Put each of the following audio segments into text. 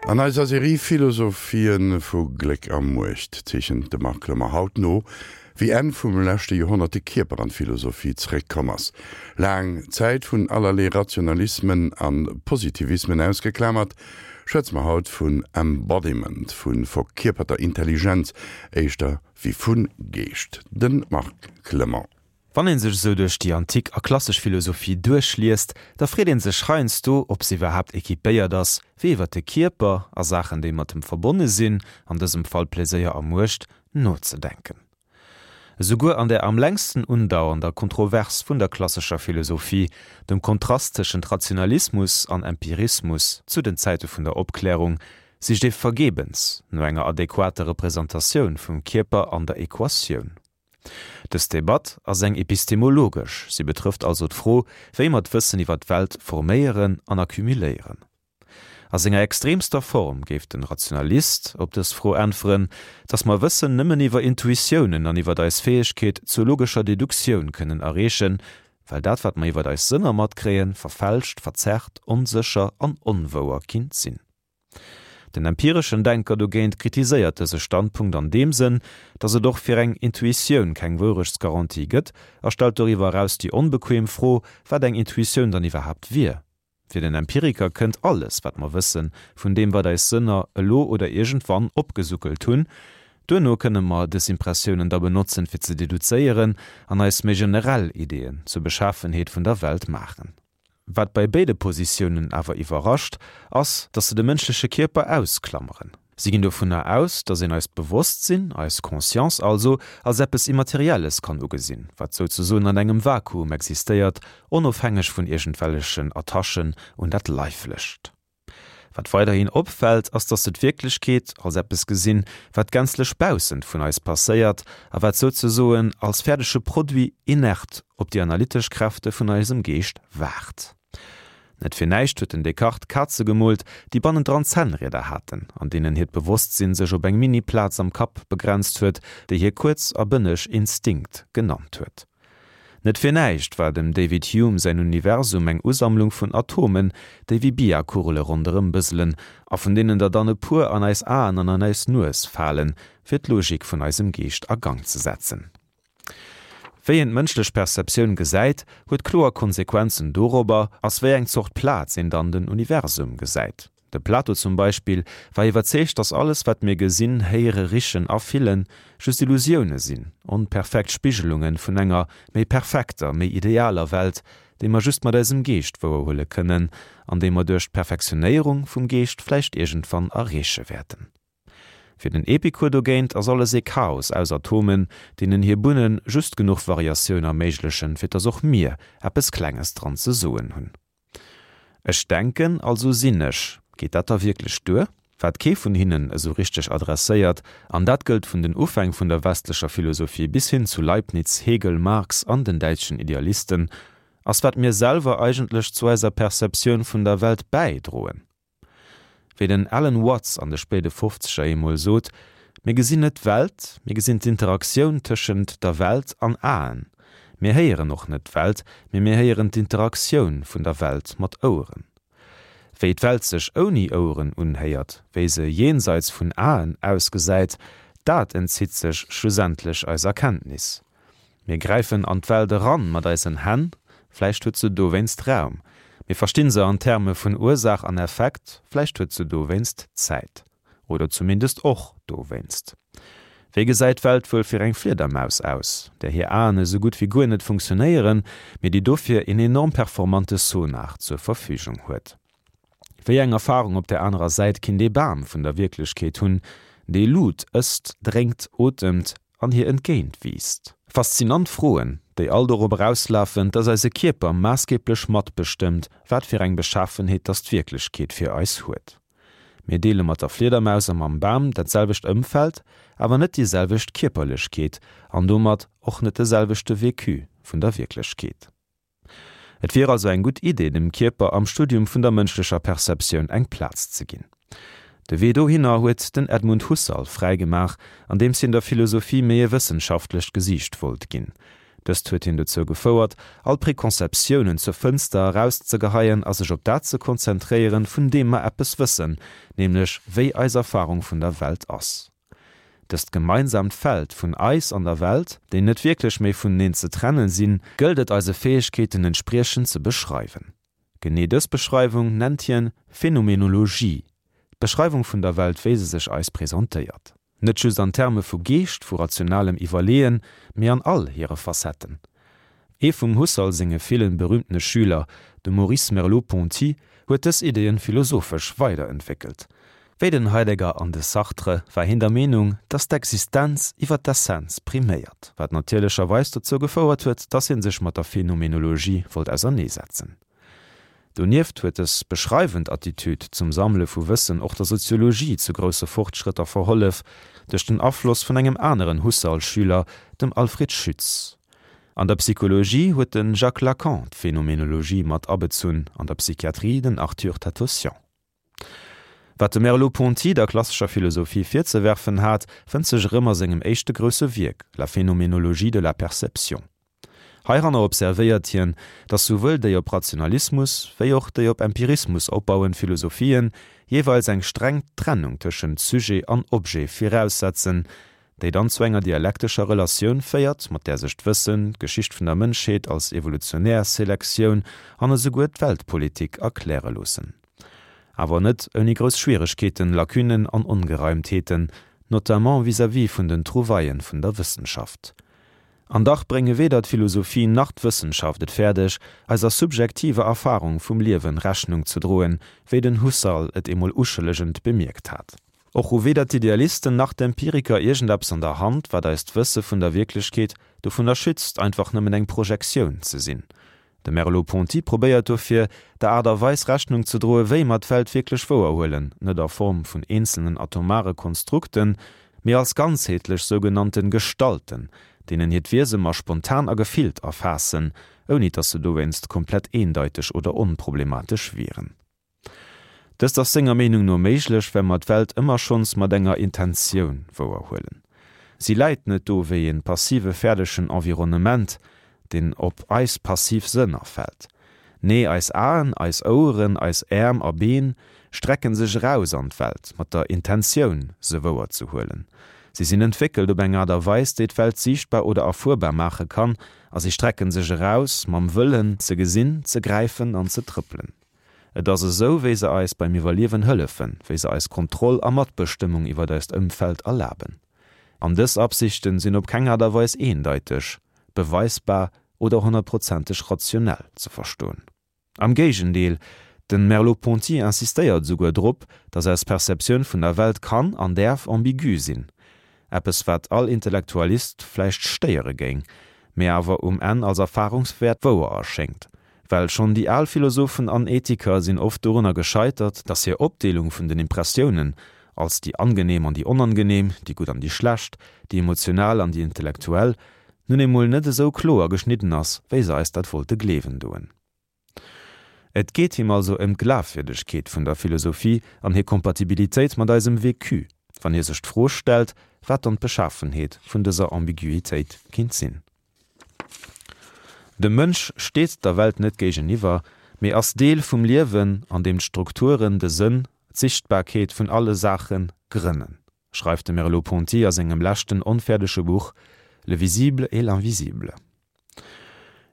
An eiser Serie Philosophien vu Gléck a Muecht zeechent de Marc Clement haut no, wéi Enn vum leschte Joerhonnert de Kierper an d'Philosophie zeréckkomm ass. Laang Zäit vun allerlee Rationalismen a Positivismen ausgeklamert, schwätze mer haut vun Embodiment, vu verkierperter Intelligenz, éischter wéi vu Geescht. De Marc Clement. Wann een sech esou duerch déi antik a klassesch Philosophie duerchliest, da freet een sech heiansdo, ob se iwwerhaapt equipéiert ass, fir iwwer de Kierper a Saachen, déi mat em verbonne sinn, an dësem Fall Pleséier a Muecht, nozedenken. Esouguer an der am längsten undauernder Kontrovers vun der klassescher Philosophie, dem Kontrast tëschent Rationalismus an Empirismus zu den Zäite vun der Opklärung, sicht ee vergebens no enger adequater Representatioun vum Kierper an der Equatioun. Dës Debatt ass eng epistemologesch, si betrëfft also d'Fro, wéi mer d'Wëssen iwwer d'Welt forméieren an accumuléieren. A senger extremster Form géif den Rationalist op dës Fro äntweren, datt mer Wëssen nëmmen iwwer Intuitiounen an iwwer eis Fäegkeet zur logescher Deduktioun kënnen erreechen, well dat wat mer iwwer eis Sënner matkréien, verfälscht, verzerrt, onsécher an onwouer kinnt sinn. Den empireschen Denker dogéint kritiséiert dëse Standpunkt an deem Sënn, datt et och fir eng Intuitioun keng Wourechtsgarantie gëtt a stellt doriwwer eraus déi onbequem Fro, wat eng Intuitioun dann iwwerhaapt wier. Fir den Empiriker kënnt alles, wat mer wëssen, vun deem wat eis Sënner elo oder iergendwann opgesuckelt hunn. Duerno kënne mer dës Impressiounen da benotzen, fir ze deduzéieren an eis méi generell Ideeën zur Beschafenheet vun der Welt maachen. Wat bei béide Positiounen awer iwwerrascht, ass, datt se de mënschleche Kierper ausklammeren. Si ginn dovunner aus, datt een eist Bewosstsinn, eis Conscience also, als eppes Immaterielles kann ugesinn, wat souzesoen an engem Vakuum existéiert, onofhängeg vun iergendwellechen Attachen un dat Leiflecht. Wat weiderhin opfält, ass dass se d'Wierklechkeet als eppes gesinn, wat gänzlech baussent vun eis passéiert a wat souzesoen als fäerdege Produit inert op déi analytesch Kräfte vun eisem Geescht waart. Net fir näischt huet den Descartes Kaze gemoolt, déi bannendran Zännrieder haten, an deenen hiert Bewosstsinn sech op eng Mini-Plaz am Kapp begrenzt huet, déi hie kuerz a bënneg Instinkt genannt huet. Net fir näischt war dem David Hume säin Universum eng Usammlung vun Atomen, déi wéi Biakugele ronderëm bëselen a vun deenen der dann e puer an eis Aen an an eis Nues falen, fir d'Logik vun eisem Geescht a Gang ze setzen. Wéi een d'mënschlech Perceptioun gesäit, huet kloer Konsequenzen dorobber, ass wéi eng Zort Plaz een dann den Universum gesäit. De Plato zum Beispill war iwwerzeegt, datt alles wat mir gesinn, héiere, richen a fillen, just Illusioune sinn, onperfekt Spigelunge vun enger méi perfekter, méi idealer Welt, déi mer just mat eisem Geescht wouerhuele kënnen an déi mer duerch d'Perfektionéierung vum Geescht vläicht iergendwann erreeche wäerten. Fir den Epikur dogéint ass alles ee Chaos aus Atomen, deenen hir Bunne just genuch Variatioun erméiglechen, fir datt och mir eppes Klenges dran ze soen hunn. Ech denken, also sinn ech. Geet dat da wierklech duer? Wat kee vun hinnen esou richteg adresséiert, an dat gëllt vun den Ufäng vun der westlecher Philosophie bis hin zu Leibniz, Hegel, Marx an den däitschen Idealisten, ass wat mir selwer eigentlech zu eiser Perceptioun vun der Welt bäidroen. Wéi den Alan Watts an de spéide Fofzeger eemol sot, Mir gesinn net d'Welt, mir gesinn d'Interaktioun tëschent der Welt an Aen. Mir héieren och net d'Welt, mee mir héieren d'Interaktioun vun der Welt mat Oueren. Wéi d'Welt sech ouni Oueren unhéiert, wéi se jenseits vun Aen ausgesäit, dat entzitt sech schlussendlech eiser Kenntnis. Mir gräifen an d'Welt eran mat eisen Hänn, vläicht huet se dowéinst Raum. Mir verstinn se an Terme vun Ursaach an Effekt, vläicht huet se dowéinst Zäit. Oder zumindest och dowéinst. Wéi gesäit d'Welt wuel fir eng Fliedermaus aus, där hir Aen esou gutt wéi guer net funktionéieren, mee déi dofir een enorm performante Sonar zur Verfügung huet? Wéi eng Erfarung op där anerer Säit kinnt ee Bam vun der Wierklechkeet hunn, dee Lut ësst, drénkt, otemt an hir entgéint wiisst? Faszinant Froen, déi all dorop erauslafen, dass eise Kierper maassgeblech matbestëmmt, wat fir eng Beschafenheet dass d'Wierklechkeet fir eis huet. Mir deele mat der Fliedermaus a mam Bam dat selwecht Ëmfeld, awer net déi selwecht Kierperlechkeet an domat och net de selwechte Vécu vun der Wierklechkeet. Et wier also eng gutt Idee, dem Kierper am Studium vun der mënschlecher Perceptioun eng Plaz ze ginn. De Wee dohinner huet den Edmund Husserl fräi gemaach, andeems hien der Philosophie méi e wëssenschaftlecht Gesiicht wollt ginn. Dëst huet hien dozou gefouert, all Preconceptiounen zur Fënster erauszegeheien a sech op dat ze konzentréieren, vun deem mer eppes wëssen, nämlech wéi eis Erfarung vun der Welt ass. Dëst gemeinsaamt Feld vun eis an der Welt, déi net wierklech méi vuneneen ze trennen sinn, gëllt et eise Fäegkeeten entspriechend ze beschreiwen. Genee dës Beschreiwung nennt hien Phänomenologie, d'Beschreiwung vun der Welt wéi se sech eis presentéiert. Net just an Terme vu Geescht, vu rationalem Iwwerleeën, mee an all hire Facetten. Ee vum Husserl senge villen berühmtene Schüler, de Maurice Merleau-Ponty, huet dës Ideeën philosophesch weiderentwéckelt. Wéi den Heidegger an de Sartre war hien der Meenung, datt d'Existenz iwwer d'Essenz priméiert, wat natierlecherweis dozou gefouert huet, datt hie sech mat der Phenomenologie wollt auserneesetzen. Donieft huet dës beschreiwend Attitüd zum Sammele vu Wëssen och der Soziologie zu grousse Fortschrëtter verhollef, duerch den Afloss vun engem aneren Husserl-Schüler, dem Alfred Schütz. An der Psychologie huet de Jacques Lacan d'Phenomenologie mat abezunn, an der Psychiatrie den Arthur Tatossian. Wat de Merleau-Ponty der klassescher Philosophie virzewerfen hat, fënnt sech erëm a sengem éischte grousse Wierk, La phénoménologie de la perception. Heiranner observéiert hien, datt souwuel déi op Rationalismus wéi och déi op Empirismus opbauend Philosophien jeeweils eng streng Trennung tëschent Sujet an Objet viraussetzen, déi dann zu enger dialektescher Relatioun féiert, mat där sech d'Wëssen, d'Geschicht vun der Mënschheet als evolutionär Selektioun an esouguer d'Weltpolitik erkläre loossen. Awer net ouni grouss Schwieregkeeten, Lacunen an Ongereimtheeten, notamment vis-à-vis vun den Trouvaillen vun der Wëssenschaft. An dach brénge weder d'Philosophie nach d'Wëssenschaft et fäerdeg, eiser subjektiver Erfarung vum Liewen Rechnung ze droen, wéi den Husserl et emol uschëllegend bemierkt hat. Och hu weder d'Idealisten nach d'Empiriker iergendeppes an der Hand, wat eist Wësse vun der Wierklechkeet dovunner schützt, einfach nëmmen eng Projektioun ze sinn. De Merleau-Ponty probéiert dofir, der Aart a Weis Rechnung ze droe wéi mer d'Welt wierklech wouerhuelen, net a Form vun eenzelnen atomare Konstrukten, mee als ganzheetlech sougenannte Gestalten, deenen hiert Wiese mer spontan a gefillt erfaassen, ouni dass se dowéinst komplett eendeiteg oder onproblematesch wieren. Dëst ass senger Meenung no méiglech, well mer d'Welt ëmmer schonns mat enger Intentioun wouerhuelen. Si läit net do wéi e passive fäerdegen Environnement, deen op eis passiv Sënner fält. Nee, eis Aen, eis Oueren, eis Äerm a Been strecken sech eraus an d'Welt mat der Intentioun, se wouerzehuelen. Si sinn entwéckelt op eng Aart a Weis, déi d'Welt siichtbar oder erfuerbar maache kann, a si strecken sech eraus mam Wëllen, ze gesinn, ze gräifen an ze trëppelen. Et ass esou, wéi se eis beim Iwwerliewen hëllefen, wéi se eis Kontroll a Matbestëmmung iwwer eist Ëmfeld erlaben. An dës Absichten sinn op keng Aart a Weis eendeiteg, beweisbar oder honnertprozenteg rationell ze verstoen. Am Géigendeel, den Merleau-Ponty insistéiert esouguer drop, datt eis Perceptioun vun der Welt kann an däerf ambigu sinn, eppes wat all Intellektualist vläicht stéiere géing, mee awer um Enn als Erfahrungswäert wouer erschéngt. Well schonn déi al Philosophen an Ethiker sinn oft dorunner gescheitert, datt hir Opdeelung vun den Impressiounen als déi angenehm an déi onangenehm, déi gutt an déi schlecht, déi emotional an déi intellektuell, nun emol net esou kloer geschnidden ass, wéi se eis dat wollte gleewen doen. Et geet him also ëm d'Glafwierdegkeet vun der Philosophie an hir Kompatibilitéit mat eisem Vécu, wann hie sech d'Fro stellt, wat dann d'Beschafenheet vun dëser Ambiguitéit kinnt sinn. De Mënsch steet der Welt net géigeniwwer, mee ass Deel vum Liewen, an deem d'Strukturen de Sënn, d'Sichtbarkeet vun alle Saache grënnen, schreift de Merleau-Ponty a sengem leschten onfäerdege Buch Le visible et l'invisible.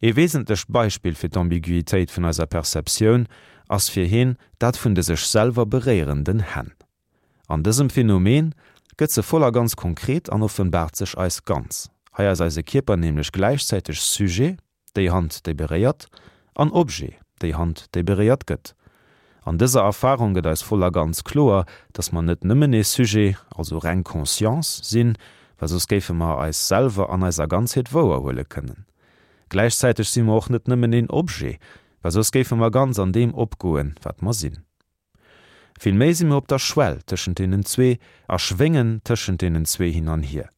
Ee wesentlecht Beispill fir d'Ambiguitéit vun eiser Perceptioun ass fir hien dat vun de sech selwer beréierenden Hänn. An dësem Phänomen gëtt se voll a ganz konkret an offenbaart sech eis ganz. Hei ass eise Kierper nämlech gläichzäiteg Sujet, déi Hand déi beréiert, an Objet, déi Hand déi beréiert gëtt. An dëser Erfarung gëtt eis voll a ganz kloer, dass mer net nëmmen ee Sujet, also reng Conscience, sinn, well soss géife mer eis selwer an eiser Ganzheet wouerhuele kënnen. Gläichzäiteg si mer och net nëmmen een Objet, well soss géife mer ganz an deem opgoen, wat mer sinn. Villméi si mir op der Schwell tëschent deenen zwee a schwéngen tëschent deenen zwee hin an hier.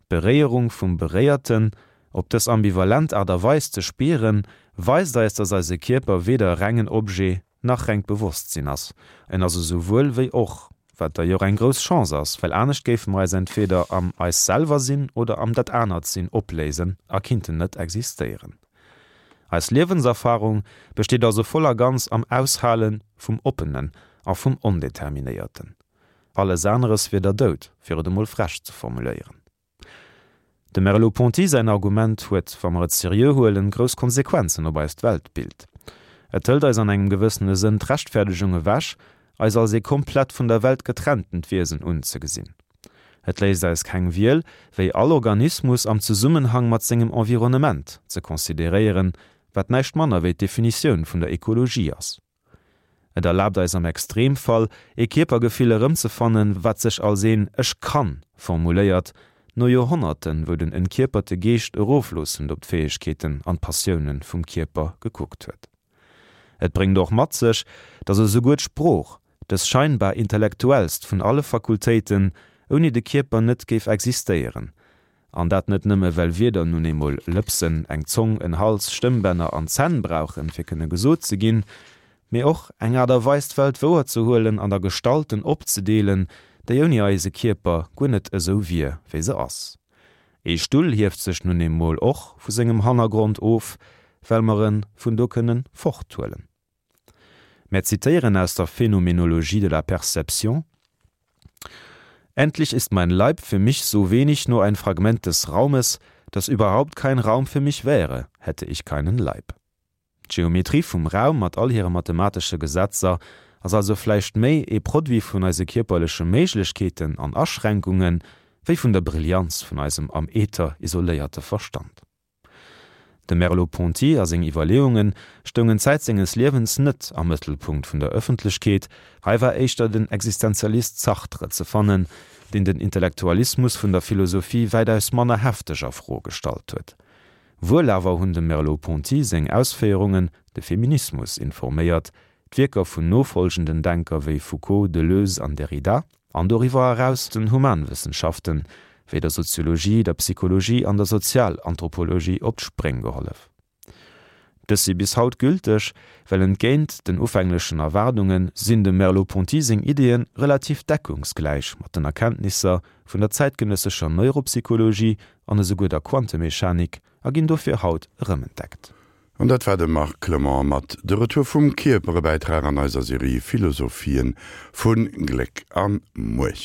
D'Beréierung vum Beréierten, op dës ambivalent Aart a Weis ze spieren, weist eis, dass eise Kierper weder rengen Objet nach rengt Bewosstsinn ass. En ass esouwuel wéi och. Wat d'ailleurs eng grouss Chance ass, well anescht géife mer eis entweder am eis selwer sinn oder am dat anert sinn opléisen a kinnten net existéieren. Eis Liewenserfarung besteet also voll a ganz am Aushale vum Oppenen a vum Ondeterminéierten. Alles aneres wier der Doud, fir et emol frech ze formuléieren. Dem Merleau-Ponty säin Argument huet, wa mer et seriö huelen, grouss Konsequenzen op eist Weltbild. Et hëlt eis an engem gewëssene Sënn d'Rechtferdegung ewech, eis als ee komplett vun der Welt getrenntent Wiesen unzegesinn. Et léisst eis keng Wiel, wéi all Organismus am Zesummenhang mat sengem Environnement ze consideréieren, wat näischt manner wéi d'Definitioun vun der Ekologie ass. Et erlaabt eis am Extremfall, ee Kierpergefill erëmzefannen, wat sech als een Ech kann formuléiert, no Joerhonnerten, wou den entkierperte Geescht erofloossend op d'Fäegkeeten an d'Passioune vum Kierper gekuckt huet. Et bréngt och mat sech, datt esouguer d'Sprooch, dës scheinbar intellektuellst vun alle Fakultéiten, ouni de Kierper net géif existéieren, An dat net nëmme well Wierder nun eemol Lëpsen, eng Zong, en Hals, Stëmmbänner an Zänn brauchen, fir kënne gesot ze ginn, mee och eng Aart a Weis d'Welt wouerzehuelen an a Gestalten opzedeelen, déi ouni eise Kierper guer net esou wier, wéi se ass. Ee Stull hieft sech nun eemol och vu sengem Hannergrond of, well mer e vun do kënne forthuelen. Mär zitéieren aus der Phänomenologie de la Perception: Endlich ist mein Leib für mich so wenig nur ein Fragment des Raumes, dass überhaupt kein Raum für mich wäre, hätte ich keinen Leib. D'Geometrie vum Raum mat all hire mathematesche Gesetzer ass also vläicht méi ee Produit vun eise kierperleche Méiglechkeeten an Aschränkunge wéi vun der Brillanz vun eisem am Äther isoléierte Verstand. De Merleau-Ponty a seng Iwwerleeunge stoungen Zäit senges Liewens net am Mëttelpunkt vun der Ëffentlechkeet, hei war éischter den Existenzialist Sartre ze fannen, deen den Intellektualismus vun der Philosophie wäitaus manner hefteg a Fro gestallt huet. Wuel awer hunn dem Merleau-Ponty seng Ausféierungen de Feminismus informéiert, d'Wierker vun nofolgenden Denker wéi Foucault, Deleuze an Derrida, an doriwwer eraus den Humanwëssenschaften, wéi der Soziologie, der Psychologie an der Sozialanthropologie op d'Spréng gehollef. Dës si bis haut gülteg, well entgéint den ufänglechen Erwaardunge sinn dem Merleau-Ponty seng Ideeë relativ deckungsgläich mat den Erkenntnisser vun der zäitgenëssescher Neuropsychologie an esouguer der Quantemechanik a ginn dofir haut erëmentdeckt. An dat war de Marc Clement mat De Retour vum Kierper, e Bäitrag an eiser Serie Philosophien vu Gléck a Muecht.